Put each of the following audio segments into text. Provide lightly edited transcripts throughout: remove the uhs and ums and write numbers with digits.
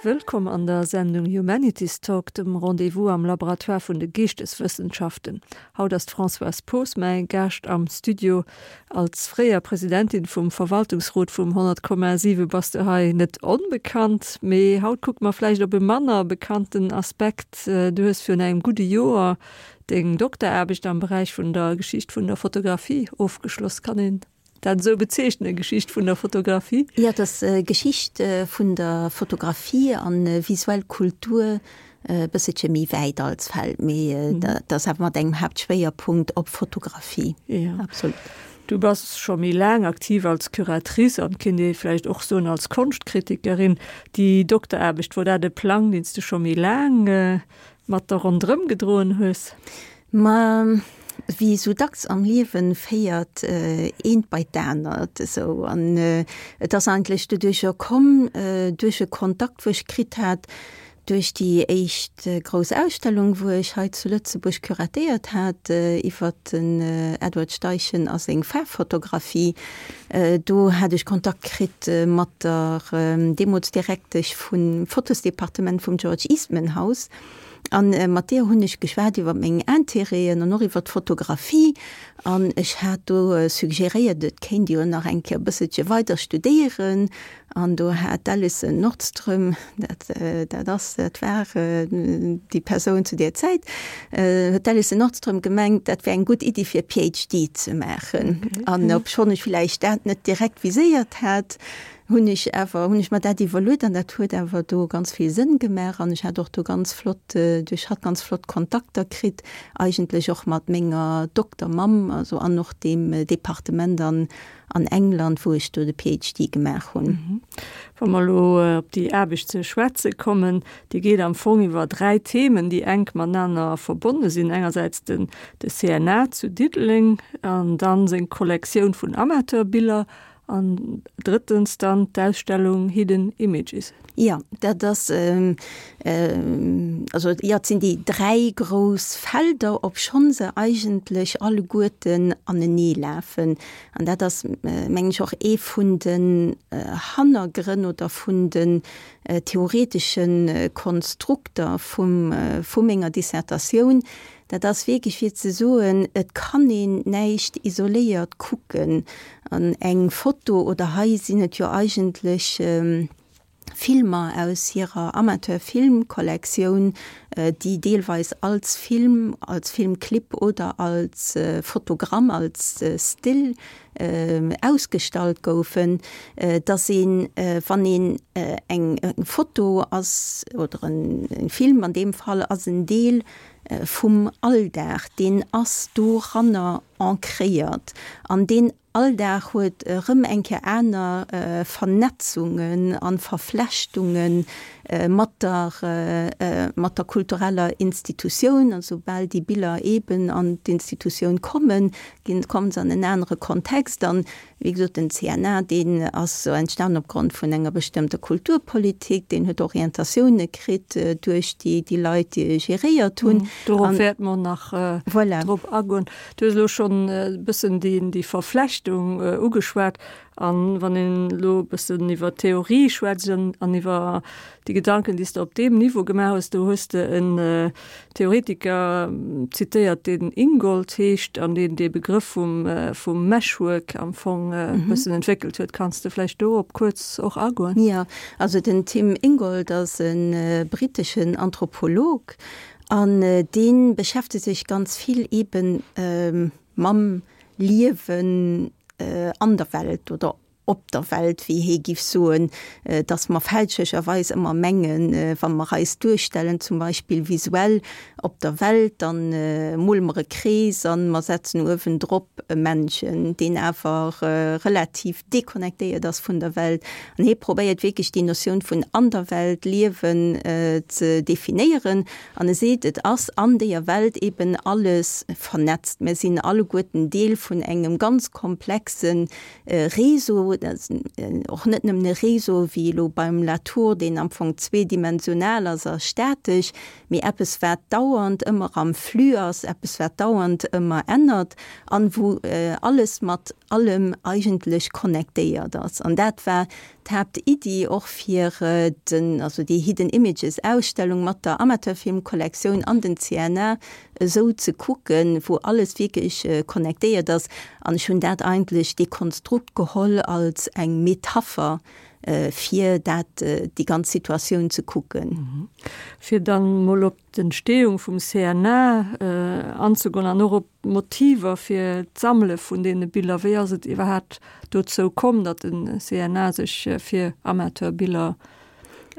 Wëllkomm an der Sendung Humanities Talk, dem Rendez-vous am Laboratoire vun de Geeschteswëssenschaften. Haut ass d'Françoise Poos mäi Gaascht am Studio. Als fréier Presidentin vum Verwaltungsrot vum 100,7 bass du hei net onbekannt. Mee haut kucke mer vläicht op e manner bekannten Aspekt. Du hues virun engem gudde Joer deng Dokteraarbecht am Beräich vun der Geschicht vun der Fotografie ofgeschloss. Kann een dat esou bezeechnen, Geschicht vun der Fotografie? Jo, et ass Geschicht vun der Fotografie an visuell Kultur, e bësselche méi wäit als Feld, mee dat ass awer mat engem Haaptschwéierpunkt op Fotografie. Jo, absolut. Du bass scho méi laang aktiv als Curatrice an, kéint ee vläicht och soen, als Konschtkritikerin. Déi Dokteraarbecht, wor dat e Plang, deen s du scho méi laang mat der ronderëm gedroen hues? Ma wéi esou dacks am Liewen féiert eent bei d'anert esou. An et ass eigentlech doduercher komm, duerch e Kontakt wou ech kritt hat, duerch déi éischt grouss Ausstellung wou ech hei zu Lëtzebuerg curatéiert hat iwwert den Edward Steichen a seng Faarffotografie. Do hat ech Kontakt kritt mat der deemools Direktesch vum Fotosdepartement vum George Eastman House. An mat deer hunn ech geschwat iwwer meng Intérêten an och iwwer d'Fotografie. An ech hat do suggeréiert, et kéint ee jo nach eng Kéier e bësselche weider studéieren. An do hat d'Alison Nordström, dat, dat ass, dat war déi Persoun zu deer Zäit, huet d'Alison Nordström gemengt, dat wär eng gutt Iddi fir e PhD ze maachen. An obschonn ech villäicht dat net direkt viséiert hat, hunn ech awer, hunn ech mer dat iwwerluet an dat huet awer do ganz vill Sënn gemaach an ech hat och do ganz flott, duerch hatt ganz flott Kontakter kritt, eigentlech och mat menger Doktermamm, also an och deem Departement an an England, wou ech do de PhD gemaach hunn. Wa mer elo op déi Aarbecht ze schwätze kommen, déi geet am Fong iwwer 3 Themen, déi enk matenaner verbonne sinn, engersäits den de CNA zu Diddeleng an dann seng Kollektioun vun Amateurbiller An drëttens dann d'Ausstellung Hidden Images. Jo, dat ass, also jo, et sinn déi 3 grouss Felder, obschonn se eigentlech alleguerten aneneelafen. An dat ass, mengen ech, och ee vun den Hannergrënn oder vun den theoretesche Konstrukter vum, vu menger Dissertatioun, Dat ass wierklech fir ze soen, et kann een näischt isoléiert kucken. An eng Foto, oder hei sinn et jo eigentlech Filmer aus hirer Amateurfilmkollektioun, déi deelweis als Film, als Filmclip oder als Fotogramm, als Still ausgestallt goufen, dass een, wann een eng Foto ass oder e Film an deem Fall, ass en Deel vum Alldag, deen ass doranner ancréiert an deen Alldag huet erëm eng Kéier aner Vernetzungen a Verflechtunge mat der, mat der kultureller Institutioun. A soubal déi Biller eeben an d'Institutioun kommen, ginn, kommen se an en anere Kontext. An, wéi gesot, den CNA, deen ass entstanen opgrond vun enger bestëmmter Kulturpolitik, deen huet Orientatioune kritt duerch déi, déi Leit, déi e geréiert hunn. Dorop wäerte mer nach drop agoen. Du hues elo schonn e bëssen déi, déi Verflechtung ugeschwat. An wann een elo e bëssen iwwer Theorie schwätzt an iwwer déi Gedanken, déi s de op deem Niveau gemaach hues, do hues de en Theoretiker zitéiert, deen Ingold heescht an deen dee Begrëff vum, vum Meshwork am Fong e bëssen entwéckelt huet. Kanns de vläicht dorop kuerz och agoen? Jo, also den Tim Ingold ass e britteschen Anthropolog an dee beschäftegt sech ganz vill eeben mam Liewen an der Welt oder op der Welt, wéi hee giff soen, dass mer fälschlecherweis ëmmer mengen, wa mer eis duerstellen, zum Beispill visuell op der Welt, dann mole mer e Krees an mer setzen uewendrop e Männchen, deen awer relativ deconnectéiert ass vun der Welt. An hee probéiert wierklech déi Notioun vun an der Welt liewen ze definéieren. An e seet, et ass an deeër Welt eben alles vernetzt. Mir sinn alleguerten Deel vun engem ganz komplexe Réseau, och net nëmmen e Réseau wéi elo beim Latour, deen am Fong zweedimensional ass a statesch, mee eppes wat dauernd ëmmer am Flux ass, eppes wat dauernd ëmmer ännert an wou alles mat allem eigentlech connectéiert ass. An dat war. d'Haaptiddi och fir den, also déi Hidden Images Ausstellung mat der Amateurfilmkollektioun an den CNA esou ze kucken, wou alles wierklech connectéiert ass. An ech hunn dat eigentlech, dee Konstrukt geholl als eng Metapher fir dat, déi ganz Situatioun ze kucken. Fir dann mol op d'Entstehung vum CNA anzegoen an och op d'Motiver fir d'Sammele vun deene Biller. Wéi ass et iwwerhaapt dozou komm, datt de CNA sech fir Amateurbiller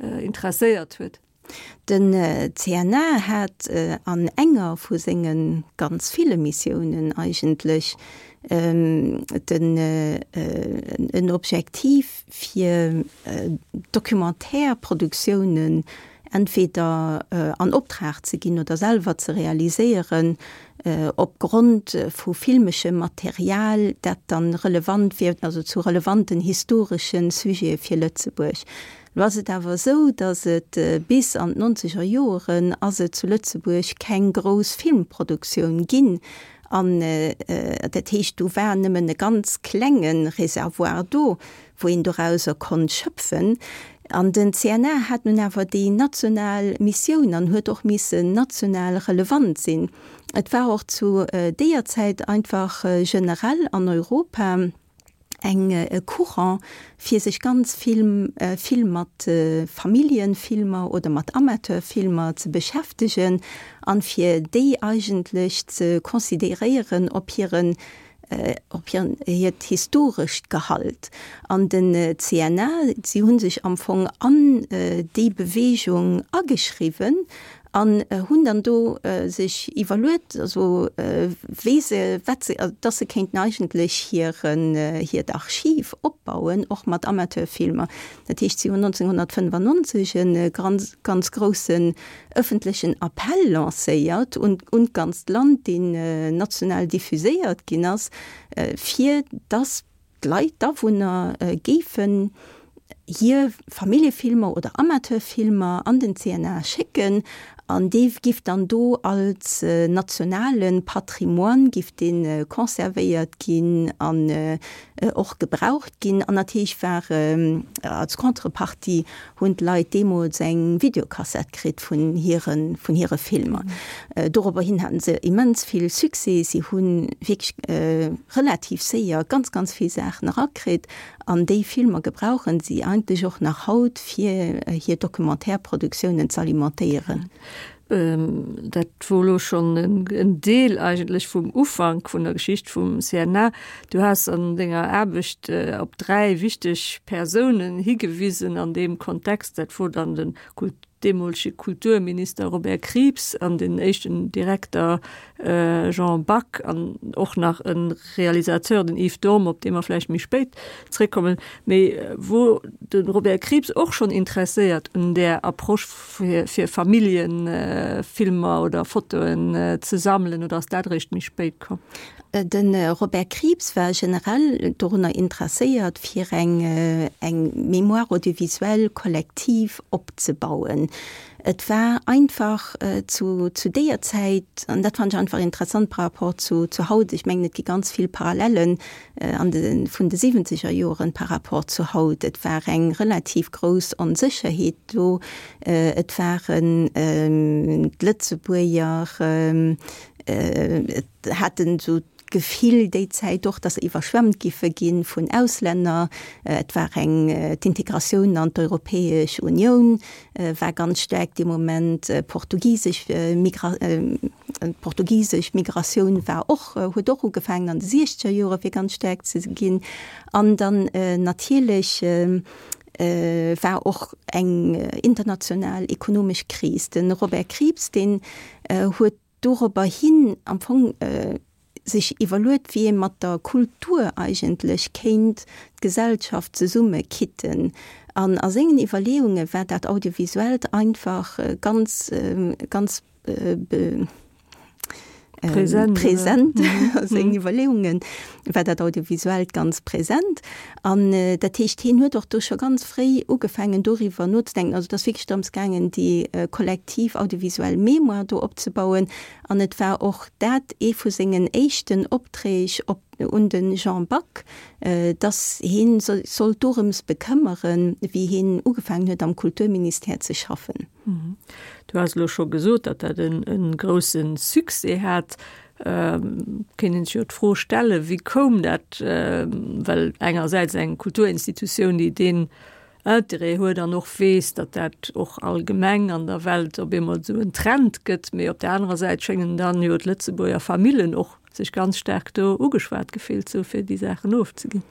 interesséiert huet? Den CNA hat an enger vu senge ganz ville Missiounen eigentlech den en Objektiv fir Documentaire-Produktiounen entweder an Optrag ze ginn oder selwer ze realiséieren, op Grond vu filmeschem Material, dat dann relevant wier, also zu relevanten historeschen Sujete fir Lëtzebuerg. Lo ass et awer esou, datt et bis an d'nonzeger Joeren ass et zu Lëtzebuerg keng grouss Filmproduktioun ginn. An dat heescht, do war nëmmen e ganz klenge Reservoir do, wou een dorauser konnt schöpfen. An den CNA hat nun awer déi national Missioun an huet och missen national relevant sinn. Et war och zu deeër Zäit einfach generell an Europa eng e Courant, fir sech ganz vill vill mat Familljenfilmer oder mat Amateurfilmer ze beschäftegen an fir déi eigentlech ze considéréieren op hiren op hiren hiert historescht Gehalt. An den CNA, si hu sech am Fong an déi Bewegung ageschriwwen an hunn dann do sech iwwerluet, also wéi se, wat se, dass se kéinten eigentlech hiren, hiert Archiv opbauen, och mat Amateurfilmer. Dat heescht, si hunn 1995 e ganz, ganz groussen ëffentlechen Appell lancéiert un, un d'ganzt Land, deen national diffuséiert ginn ass, fir dass d'Leit, d'Awunner géifen hir Familljefilmer oder Amateurfilmer an den CNA schécken an dee giff dann do als nationale Patrimoine giff dee conservéiert ginn an och gebraucht ginn. An natierlech war als Contrepartie hunn d'Leit deemools eng Videokassett kritt vun hire vun hire Filmer. Dorobber hin haten se immens vill Succès. Si hu wierklech relativ séier ganz, ganz vill Saachen erakritt. An déi Filmer gebrauchen si eigentlech och nach haut, fir hir Documentaire-Produktiounen z'alimentéieren. Dat wor elo schonn en Deel eigentlech vum Ufank vun der Geschicht vum CNA. Du has an denger Aarbecht op 3 wichteg Persounen higewisen an deem Kontext. Dat wor dann den deemolege Kulturminister Robert Krieps an den éischten Direkter Jean Back an och nach e Realisateur, den Yves Dorm, op dee mer vläicht méi spéit zréckkommen. Mee wor de Robert Krieps och schonn interesséiert un där Approche fir Familljefilmer oder Fotoen ze sammelen oder ass dat eréischt méi spéit komm? De Robert Krieps war generell dorunner interesséiert, fir eng eng Mémoire audiovisuelle collective opzebauen. Et war einfach zu zu deeër Zäit, an dat fannen ech einfach interessant par rapport zu zu haut, ech mengen et gi ganz vill Parallellen an de vun de siwwenzeger Joren par rapport zu haut, et war eng relativ grouss Onsécherheet do, et waren d'Lëtzebuerger haten esou d'Gefill déi Zäit och, datt se iwwerschwemmt giffe gi vun Auslänner. Et war eng, d'Integratioun an d'Europäesch Unioun war ganz staark dee Moment, portugisesch Migra, d'portugisesch Migratioun war och, huet och ugefaangen an de siechzeger Jore fir ganz staark ze ginn. An dann natierlech war och eng international ekonomesch Kris. De Robert Krieps, deen huet dorobber hin am Fong sech iwwerluet, wéi ee mat der Kultur eigentlech kéint d'Gesellschaft zesummekitten. An a sengen Iwwerleeunge war dat Audiovisuellt einfach ganz, ganz. Present a sengen Iwwerleeungen, war dat Audiovisuellt ganz present. An dat heescht, hien huet och do scho ganz fréi ugefaangen doriwwer nozedenken. Also et ass wierklech drëms gaangen, déi kollektiv audiovisuell Mémoire do opzebauen. An et war och dat ee vu sengen éischten Opträg op un de Jean Back, dass hie sech sollt dorëms bekëmmeren, wéi hien ugefaangen huet am Kulturministère ze schaffen. Du has elo scho gesot, datt dat e grousse Succès hat. Kéint een sech jo d'Fro stellen, wéi koum dat? Well engersäits eng Kulturinstitutioun, déi deen Interêt huet an och weess, datt dat och allgemeng an der Welt op eemol esou en Trend gëtt, mee op der anerer Säit schéngen dann jo d'Lëtzebuerger Famillen och sech ganz staark do ugeschwat gefillt ze hu fir déi Saachen ofzeginn.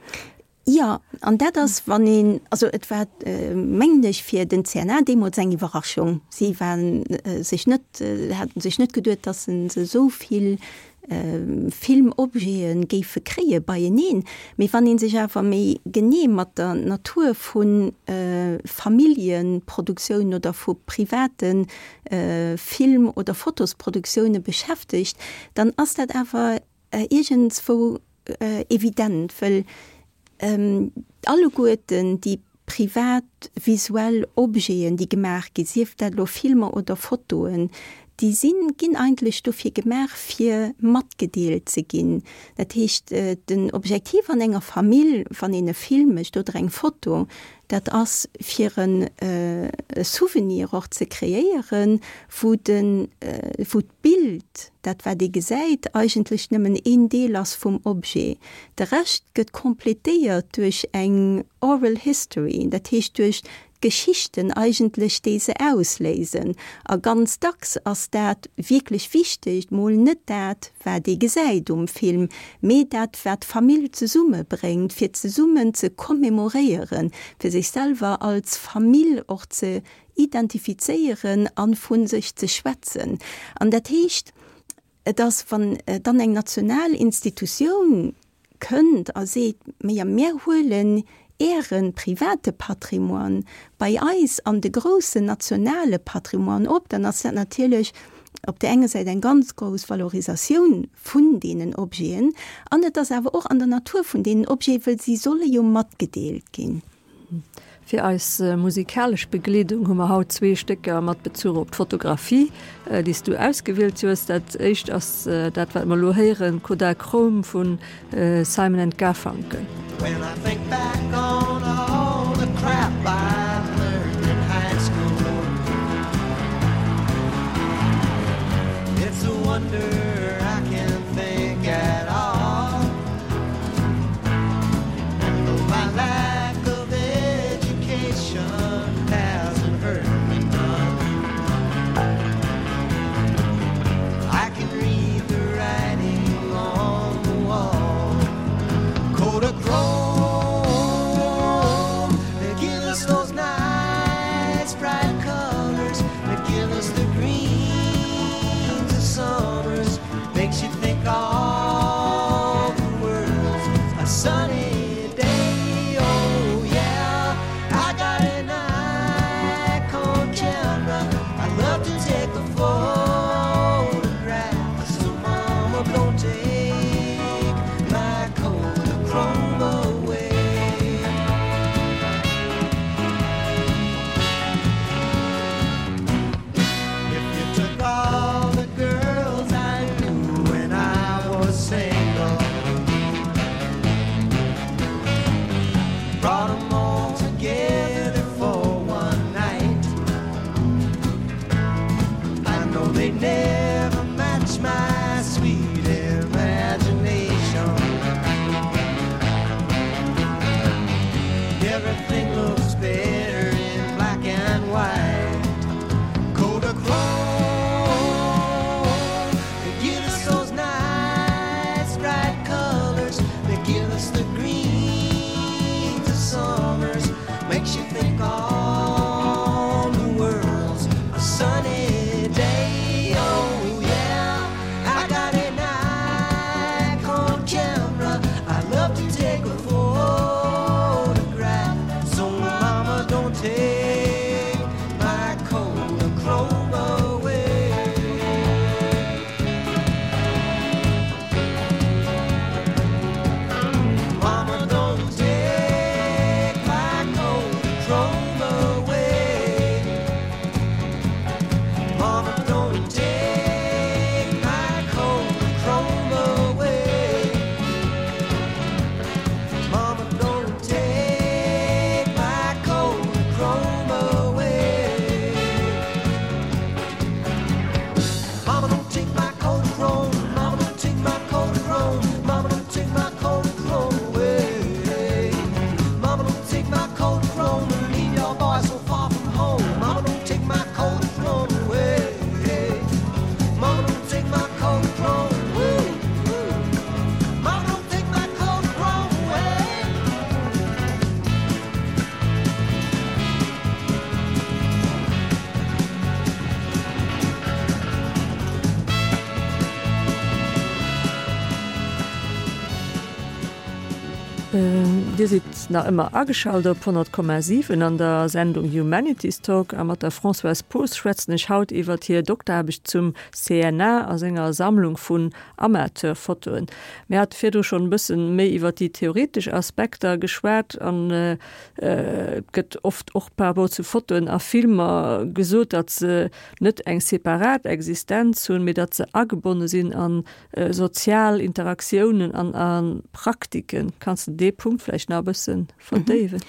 Jo, an dat ass, wann een, also et war, mengen ech, fir den CNA deemools eng Iwwerraschung. Si waren sech net, haten sech net geduet, datt se esou vill Filmobjete géife kréie beieneen. Mee wann ee sech awer méi genee mat der Natur vu Familljeproduktioun oder vu private Film oder Fotosproduktioune beschäftegt, dann ass dat awer iergendswou evident, wëll alleguerten déi privat visuell Objeten, déi gemaach ginn, sief dat elo Filmer oder Fotoen, déi sinn, ginn eigentlech dofir gemaach, fir matgedeelt ze ginn. Dat heescht, den Objektiv an enger Famill, wann een e Film mécht oder eng Foto, dat ass fir e Souvenir och ze kreéieren, wou de, wou d'Bild, dat wat ee gesäit, eigentlech nëmmen een Deel ass vum Objet. De Rescht gëtt completéiert duerch eng oral history, dat heescht duerch d'Geschichten eigentlech, déi se ausléisen. A ganz dacks ass dat wierklech Wichtegt mol net dat, wat ee gesäit um Film, mee dat, wat d'Famill zesummebréngt, fir zesummen ze commemoréieren, fir sech selwer als Famill och ze identifizéieren a vu sech ze schwätzen. An dat heescht, et ass, wann dann eng national Institutioun kënnt a seet, Majo, mir huelen Äre private Patrimoine bei eis an de groussen nationale Patrimoine op, dann ass dat natierlech op där enger Säit eng ganz grouss Valorisatioun vun deenen Objeten an et ass awer och an der Natur vun deenen Objeten, wëll si solle jo matgedeelt ginn. Fir eis musikalesch Begleedung hu mer haut zwee Stécker mat Bezuch op d'Fotografie, déi s du ausgewielt hues. Dat éischt ass dat, wat mer elo héieren, Kodachrome vu Simon and Garfunkel. When I think back on all the crap I've learned in high school It's a wonder I can think at all And though my lack of education hasn't hurt me none I can read the writing on the wall Kodachrome They give us those nice bright colors They give us the greens of summers Makes you think all the world's a sunny day Oh yeah, I got an Nikon camera I love to take a photograph So mama don't take my Kodachrome away If you took all the girls I knew when I was single Brought 'em all together for one night I know they'd never match my sweet imagination Everything looks better in black and white Kodachrome They give us those nice bright colors They give us the greens of summers Makes you think all the world's a sunny day Oh yeah, I got a Nikon camera I love to take a photograph So. Dir sidd nach ëmmer ageschalt op 100,7 an der Sendung Humanities Talk a mat der Françoise Poos schwätzen ech haut iwwert hir Dokteraarbecht zum CNA a senger Sammlung vun Amateurfotoen. Mir hate virdru schonn e bëssen méi iwwert déi theoretesch Aspekter geschwat an et gëtt oft och par rapport zu Fotoen a Filmer gesot, datt se net eng separat Existenz hunn, mee datt se agebonne sinn a sozial Interaktiounen an a Praktiken. Kanns de dee Punkt vläicht nach e bësse verdéiwen?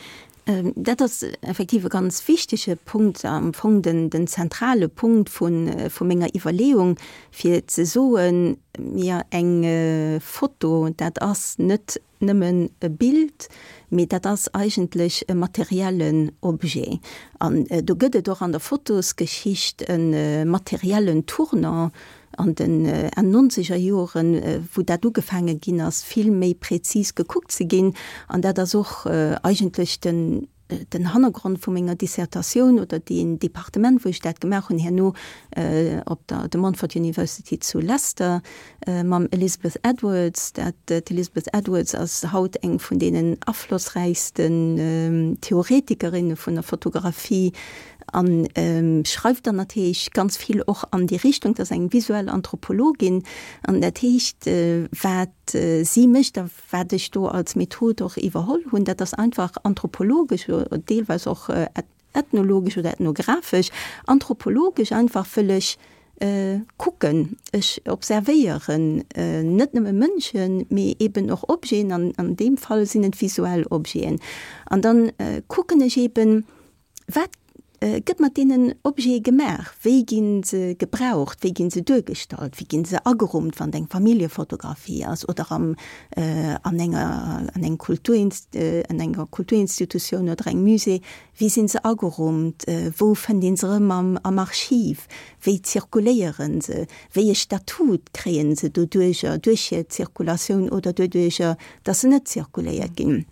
Dat ass effektiv e ganz wichtege Punkt, am Fong den, den zentrale Punkt vu, vu menger Iwwerleeung, fir ze soen, mir eng Foto, dat ass net nëmmen e Bild, mee dat ass eigentlech e materiellen Objet. An do gëtt et och an der Fotosgeschicht e materiellen Tournant an den Enn nonzeger Joren, wou dat ugefaange ginn ass, vill méi präzis gekuckt ze ginn. An dat ass och eigentlech den, den Hannergrond vu menger Dissertatioun oder deen Departement, wou ech dat gemaach hunn herno op der De Montfort University zu Leicester mam Elizabeth Edwards. Dat, d'Elizabeth Edwards ass haut eng vun deenen aflossräichsten Theoretikerinne vun der Fotografie an schreift dann natierlech ganz vill och an déi Richtung, dat ass eng visuell Anthropologin an dat heescht, wat si mécht a wat ech do als Method och iwwerholl hunn, dat ass einfach anthropologesch, deelweis och ethnologesch oder ethnographesch, anthropologesch einfach wëll ech kucken, ech observéieren net nëmme Mënschen, mee eben och Objeten, an an deem Fall sinn et visuell Objeten. An dann kucken ech eben, Wat gëtt mat deenen Objete gemaach? Wéi gi se gebraucht? Wéi gi se duergestallt? Wéi gi se agerummt, wann et eng Familljefotografie ass oder am an enger an engem Kulturinst an enger Kulturinstitutioun oder engem Musée? Wéi sinn se agerummt? Wou fënnt ee se erëm am am Archiv? Wéi zirkuléiere se? Wéi e Statut kréie se doduercher, duerch hir Zirkulatioun oder doduercher, datt se net zirkuléiert ginn?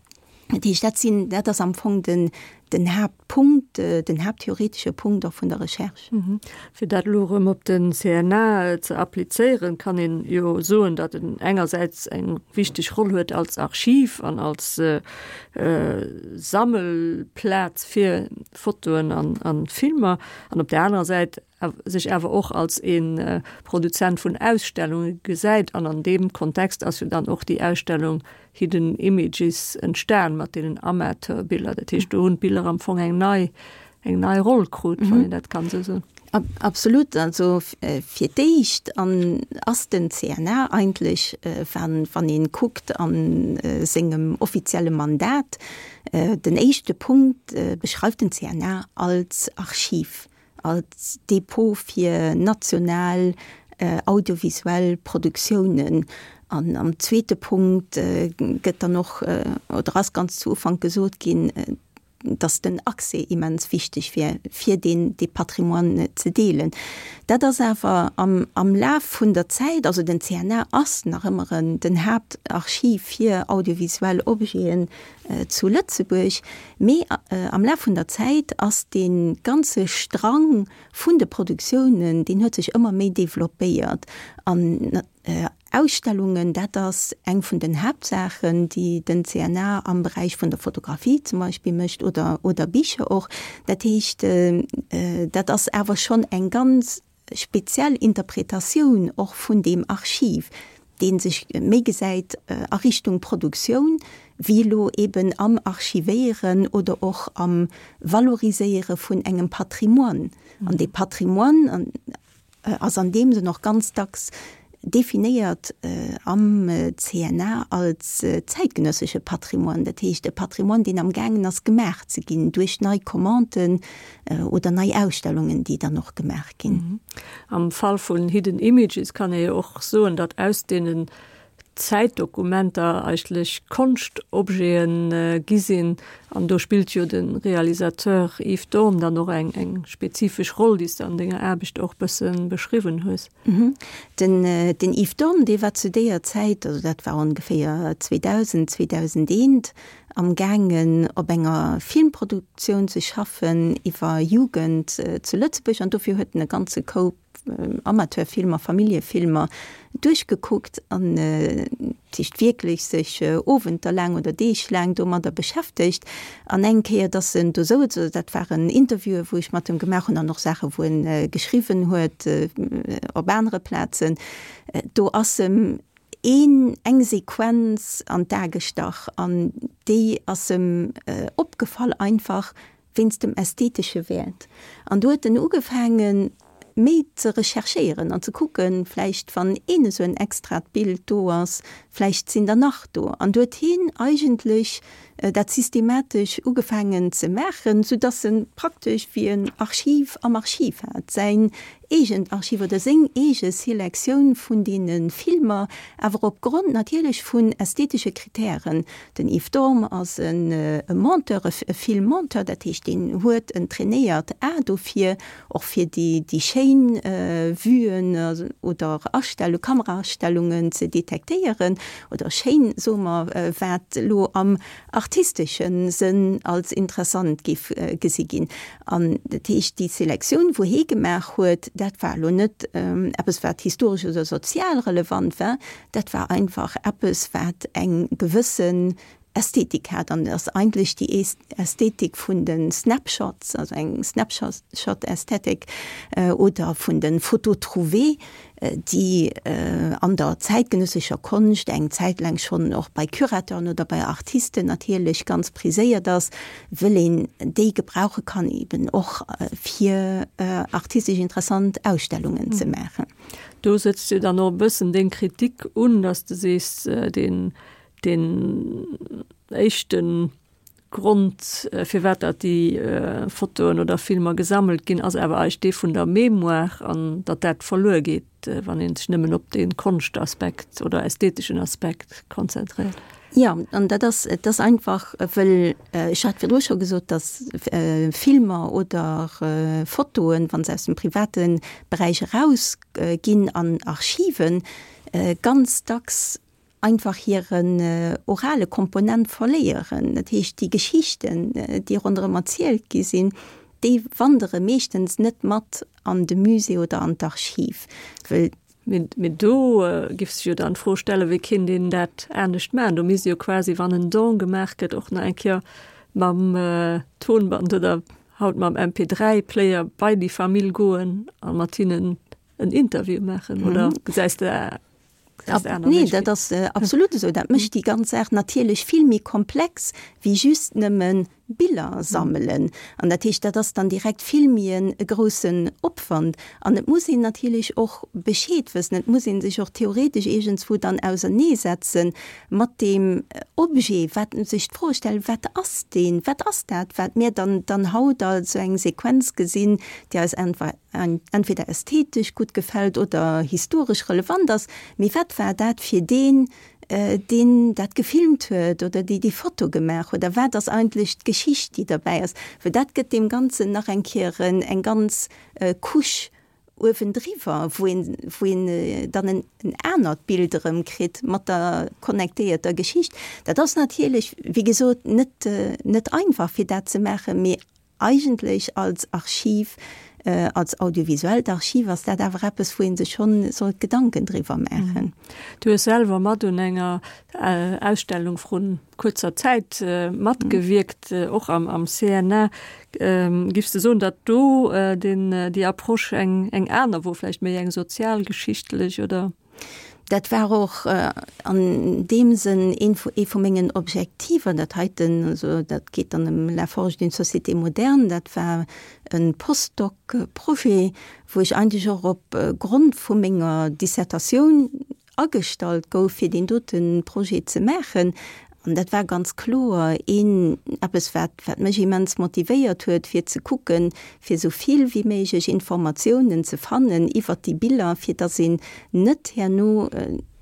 Dat heescht, dat sinn, dat ass am Fong den, den Haaptpunkt, den haapttheoretesche Punkt och vun der Recherche. Fir dat elo erëm op den CNA ze applizéieren, kann een jo soen, datt en engersäits eng wichteg Roll huet als Archiv an als Sammelplaz fir Fotoen an Filmer an op där anerer Säit sech awer och als ee Produzent vun Ausstellunge gesäit. An an deem Kontext ass jo dann och déi Ausstellung Hidden Images entstan mat deenen Amateure-Biller. Dat heescht, do hunn d'Biller am Fong eng nei, eng nei Roll krut, wann een dat kann esou soen. Absolut. Also fir d'éischt an ass den CNA eigentlech, wann, wann ee kuckt a sengem offizielle Mandat, den éischte Punkt beschreift den CNA als Archiv. als Depot fir national audiovisuell Produktiounen. An am zweete Punkt gëtt dann och, oder ass ganz zu Ufank gesot ginn, dass den Accès immens wichteg wier, fir deen, dee Patrimoine ze deelen. Dat ass awer am, am Laf vun der Zäit, also den CNA ass nach ëmmer en, den Haaptarchiv fir audiovisuell Objeten zu Lëtzebuerg, mee am Laf vun der Zäit ass dee ganze Strang vun de Produktiounen, deen huet sech ëmmer méi developpéiert. An Ausstellungen, dat ass eng vun den Haaptsaachen, déi den CNA am Beräich vun der Fotografie zum Beispill mécht oder, oder Bicher och. Dat heescht, dat ass awer schonn eng ganz speziell Interpretatioun och vun deem Archiv, dee sech méi gesäit a Richtung Produktioun, wéi elo eben am Archivéieren oder och am Valoriséiere vun engem Patrimoine. An dee Patrimoine ass an deem Sënn och ganz dacks definéiert am CNA als zäitgenëssesche Patrimoine, dat heescht e Patrimoine, deen amgaangen ass gemaach ze ginn duerch nei Commanden oder nei Ausstellungen, déi dann och gemaach ginn. Am Fall vun Hidden Images kann ee jo och soen, datt aus deenen Zäitdokumenter eigentlech Konschtobjete gi sinn. An do spillt jo de Realisateur Yves Dorn dann och eng eng spezifesch Roll, déi s de an denger Aarbecht och bësse beschriwwen hues. Den den Yves Dorn, dee war zu deeër Zäit, also dat war ongeféier 2000, 2001, am gaangen op enger Filmproduktioun ze schaffen iwwer Jugend zu Lëtzebuerg an dofir huet en e ganze Koup. Amateurfilmer, Familljefilmer duerchgekuckt an dat heescht wierklech sech Owenter laang oder Deeg laang domadder beschäftegt. An eng Kéier, dass en do souz, also dat waren Interviewen, wou ech mat em gemaach hunn an och Saache wou en geschriwwen huet op anere Plazen, do ass em een, eng Sequenz an d'A gestach an déi ass em opgefall einfach wéinst dem ästhetesche Wäert. An do huet en ugefaangen, méi ze recherchéieren an ze kucken, vläicht wann een esou en extrat Bild do ass, vläicht sinn der nach do. An do huet hien eigentlech dat systematesch ugefaangen ze maachen, soudass en praktesch wéi en Archiv am Archiv hat, säin eegent Archiv oder seng eege Selektioun vun deene Filmer, awer opgrond natierlech vun ästhetesche Kritären. Den Yves Dorm ass e Monteur, e Filmmonteur, dat heescht deen huet en trainéiert A dofir, och fir déi schéin Vuen oder Astellung, Kameraastellungen ze detektéieren, oder schéin, soe mer, wat elo am artistesche Sënn als interessant géif gesi ginn. An dat heescht, déi Selektioun, wou hee gemaach huet, dat war elo net eppes, wat historesch oder sozial relevant war, dat war einfach eppes, wat eng gewëssen Ästhetik hat. An et ass eigentlech déi Ästhetik vun de Snapshots, also eng Snapshot-Ästhetik, oder vun de Photos trouvées, déi an der zäitgenëssescher Konscht eng Zäit laang schonn och bei Curateuren oder bei Artisten natierlech ganz priséiert ass, wëll een déi gebrauche kann eben och fir artistesch interessant Ausstellungen ze maachen. Do sëtzt jo dann och e bëssen deng Kritik un, datt s de sees, deen deen éischten Grond, firwat datt déi Fotoen oder Filmer gesammelt ginn, ass awer eigentlech dee vun der Mémoire an datt dat verluer geet, wann ee sech nëmmen op dee Konschtaspekt oder ästheteschen Aspekt konzentréiert. Jo, an dat ass, et ass einfach, wëll, ech hat virdru scho gesot, datt Filmer oder Fotoen, wa se aus dem private Beräich erausginn an Archiven, ganz dacks einfach hiren orale Komponent verléieren. Dat heescht, déi Geschichten, déi ronderëm erzielt gi sinn, déi wandere meeschtens net mat an de Musée oder an d'Archiv, wëll. Mee do giff sech jo dann d'Fro stellen, wéi kéint een dat anescht maachen? Do misst jo quasi, wann en Don gemaach gëtt, och nach eng Kéier mam Tonband oder haut mam MP3-Player bei déi Famill goen a mat hinnen en Interview maachen, oder gesäis de Nee, dat ass absolut esou. Dat mécht déi ganz Saach natierlech vill méi komplex wéi just nëmme Biller sammelen. An dat heescht, dat ass dann direkt vill méi e groussen Opwand. An et muss een natierlech och Bescheed wëssen, et muss ee sech och theoretesch iergendswou dann auserneesetze mat deem Objet, wat sech d'Fro stellen, wat ass deen, wat ass dat, wat mir dann dann haut als esou eng Sequenz gesinn, déi eis entweder ästhetesch gutt gefält oder historesch relevant ass, mee wat war dat fir deen, deen dat gefilmt huet oder déi déi Foto gemaach huet a wat ass eigentlech d'Geschicht, déi derbäi ass? Well dat gëtt deem Ganzen nach eng Kéier eng ganz Couche uewendriwwer, wou een, wou een dann en anert Bild erëm kritt mat der connectéierter Geschicht. Dat ass natierlech, wéi gesot, net, net einfach fir dat ze maachen, mee Eigentlech als Archiv, als audiovisuellt Archiv ass dat awer eppes, wou ee sech schonn sollt Gedanken driwwer maachen. Du hues selwer mat un enger Ausstellung vrun kuerzer Zäit matgewierkt, och am CNA. Giffs de soen, datt do déi Approche eng aner wor, vläicht méi eng sozialgeschichtlech oder? Dat war och an deem Sënn een vu, ee vu mengen Objektiver, dat heiten, also dat geet dann ëm La forge d'une société moderne, dat war e Postdoc-Projet, wou ech eigentlech och op Grond vu menger Dissertatioun agestallt gouf, fir deen dote Projet ze maachen. An dat war ganz kloer een, eppes, wat, wat mech immens motivéiert huet, fir ze kucken, fir esou vill wéi méiglech Informatiounen ze fannen iwwert déi Biller, fir dass een net herno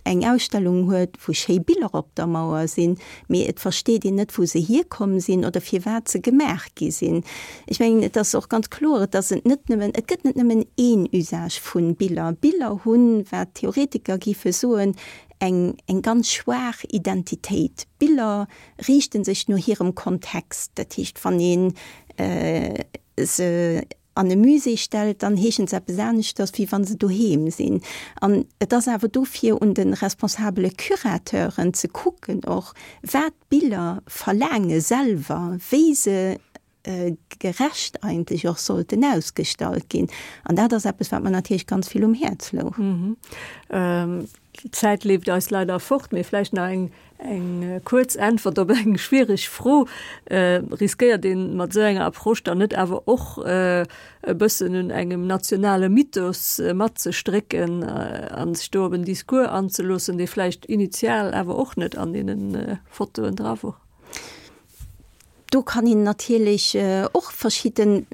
eng Ausstellung huet, wou schéi Biller op der Mauer sinn, mee et versteet een net, wou se hierkomm sinn oder firwat se gemaach gi sinn. Ech mengen, et ass och ganz kloer, dass et net nëmmen, et gëtt net nëmmen een Usage vu Biller. Biller hunn, wat d'Theoretiker géife soen, eng eng ganz schwaach Identitéit. Biller riichte sech no hirem Kontext. Dat heescht, wann ee se. an e Musée stellt, dann heeschen se eppes aneschters, wéi wa se doheem sinn. An et ass awer dofir un de responsabele Curateuren ze kucken och, wat d'Biller verlaange selwer, wéi se gerecht eigentlech och sollten ausgestallt ginn. An dat ass eppes, wat mer natierlech ganz vill um Häerz louch. D'Zäit leeft eis leider fort, mee vläicht nach eng eng kuerz Äntwert op eng schwiereg Fro. Riskéiert ee mat esou enger Approche dann net awer och e bëssen un engem nationale Mythos matzestrécken a sech do op en Discours anzeloossen, dee vläicht initial awer och net an deene Fotoen dra wor? Do kann een natierlech och verschidde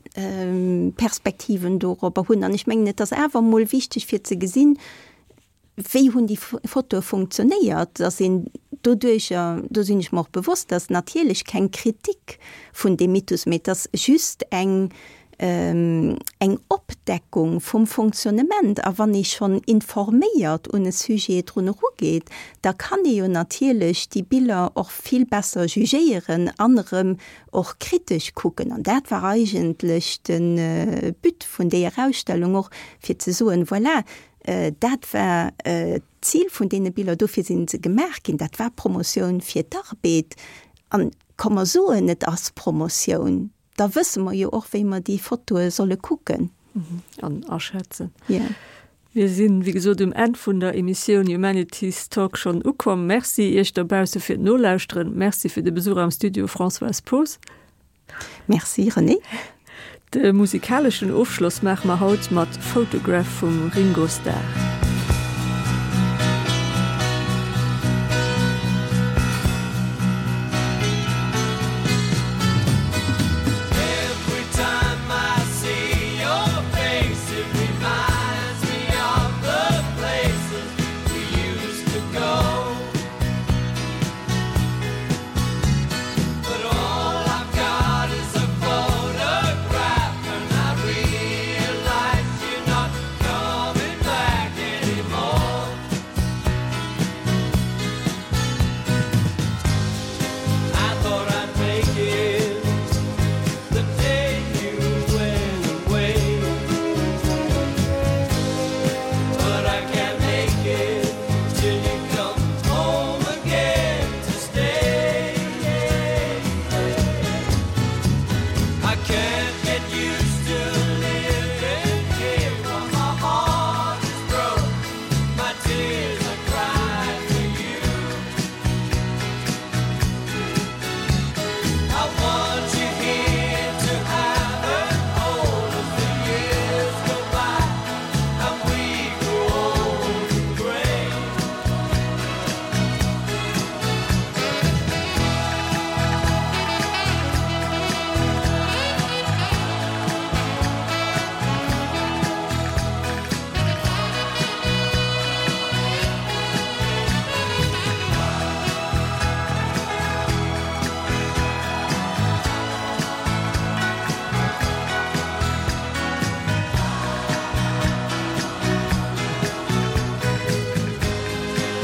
Perspektiven dorobber hunn. An ech mengen, et ass awer emol wichteg fir ze gesinn, wéi hunn déi Fotoe funktionéiert, dass een doduercher, do sinn ech mer och bewosst, dass natierlech keng Kritik vun deem Mythos, mee et ass just eng eng Opdeckung vum Fonctionnement. A wann ee schonn informéiert un e Sujet drun erugeet, da kann ee jo natierlech déi Biller och vill besser jugéieren an erëm och kritesch kucken. An dat war eigentlech de But vun deeër Ausstellung och, fir ze soen, voilà, dat war d'Zil vun deene Biller, dofir si se gemaach ginn, dat war Promotioun fir d'Arbed. An komm mer soen, et ass Promotioun. Da wësse mer jo och, wéi mer déi Fotoe solle kucken. An aschätzen. Jo. Mir sinn, wéi gesot, um Enn vun der Emissioun Humanities Talk schonn ukomm. Merci Iech dobausse fir d'Nolauschteren. Merci fir de Besuch am Studio, Françoise Poos. Merci, Renée. De musikaleschen Ofschloss maache mer haut mat Photograph vum Ringo Starr.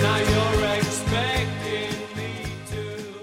Now.